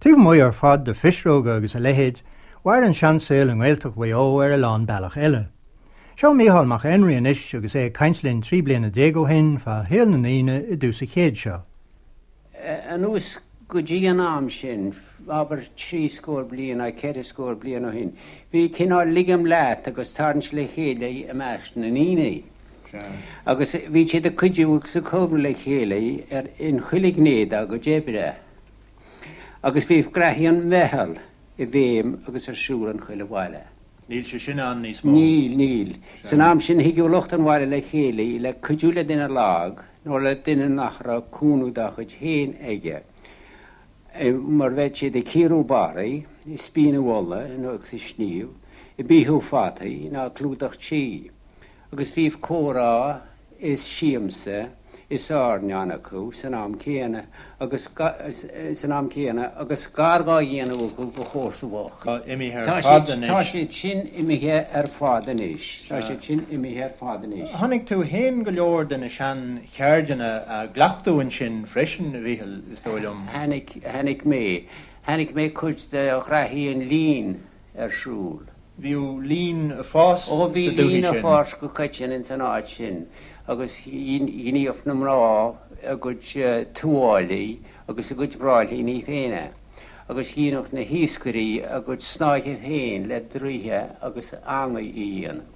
Taobh amuigh ar fad de phisreoga agus a leithéid, mhair an seansaol i nGaeltacht Mhaigh Eo ar a lán bealach eile. Seo Mícheál Mac Éinrí anois agus é ag caint linn 13 bliana ó shin fá shaol na ndaoine i dtús an chéid seo. Anuas go dtí an am sin, abair trí scór bliain nó ceithre scór bliain ó shin, bhí cineál ligim leat agus tarraingt le chéile i measc na ndaoine. Agus bhí siad ag cuidiú agus ag cabhrú le chéile ar in chuile ghné dá gcuid oibre. Agus bhí graithí an mheitheal i bhfeidhm agus ar siúl in chuile bhaile. Níl sé sin ann níos mó. Níl, níl. San am sin thigeadh lucht an bhaile le chéile le cuidiú le duine lag nó le duine nach raibh cúnamh dá chuid féin aige, mar bheadh siad ag cíoradh barraí, ag spíonadh olla nó agus ag sníomh, ag beathú fataí ná ag clúdach tí. Agus bhíodh comhrá is siamsa is airneán acu san am céanna agus san am céanna agus gar dhá dhéanamh acu do chomharsa bhocht. Tá imithe ar fad anois. Tá siad sin imithe ar fad anois. Tá siad sin imithe ar fad anois. Chonaic tú fhéin go leor de na sean-cheirdeanna á gcleachtadh ansin freisin, a Mhíchil, is dóigh liom. Chonaic, chonaic mé. Chonaic mé cuid de ghraithí an lín ar siúl. Bhíodh lín ag fás sa dúthaigh sin. Ó bhí lín ag fás go coitinn ins an áit sin agus ghníodh na mná a gcuid tuáillí agus a gcuid bráillíní féin agus dheineadh na hiascairí a gcuid snáithe féin le draoithe agus eangaí a dhéanamh.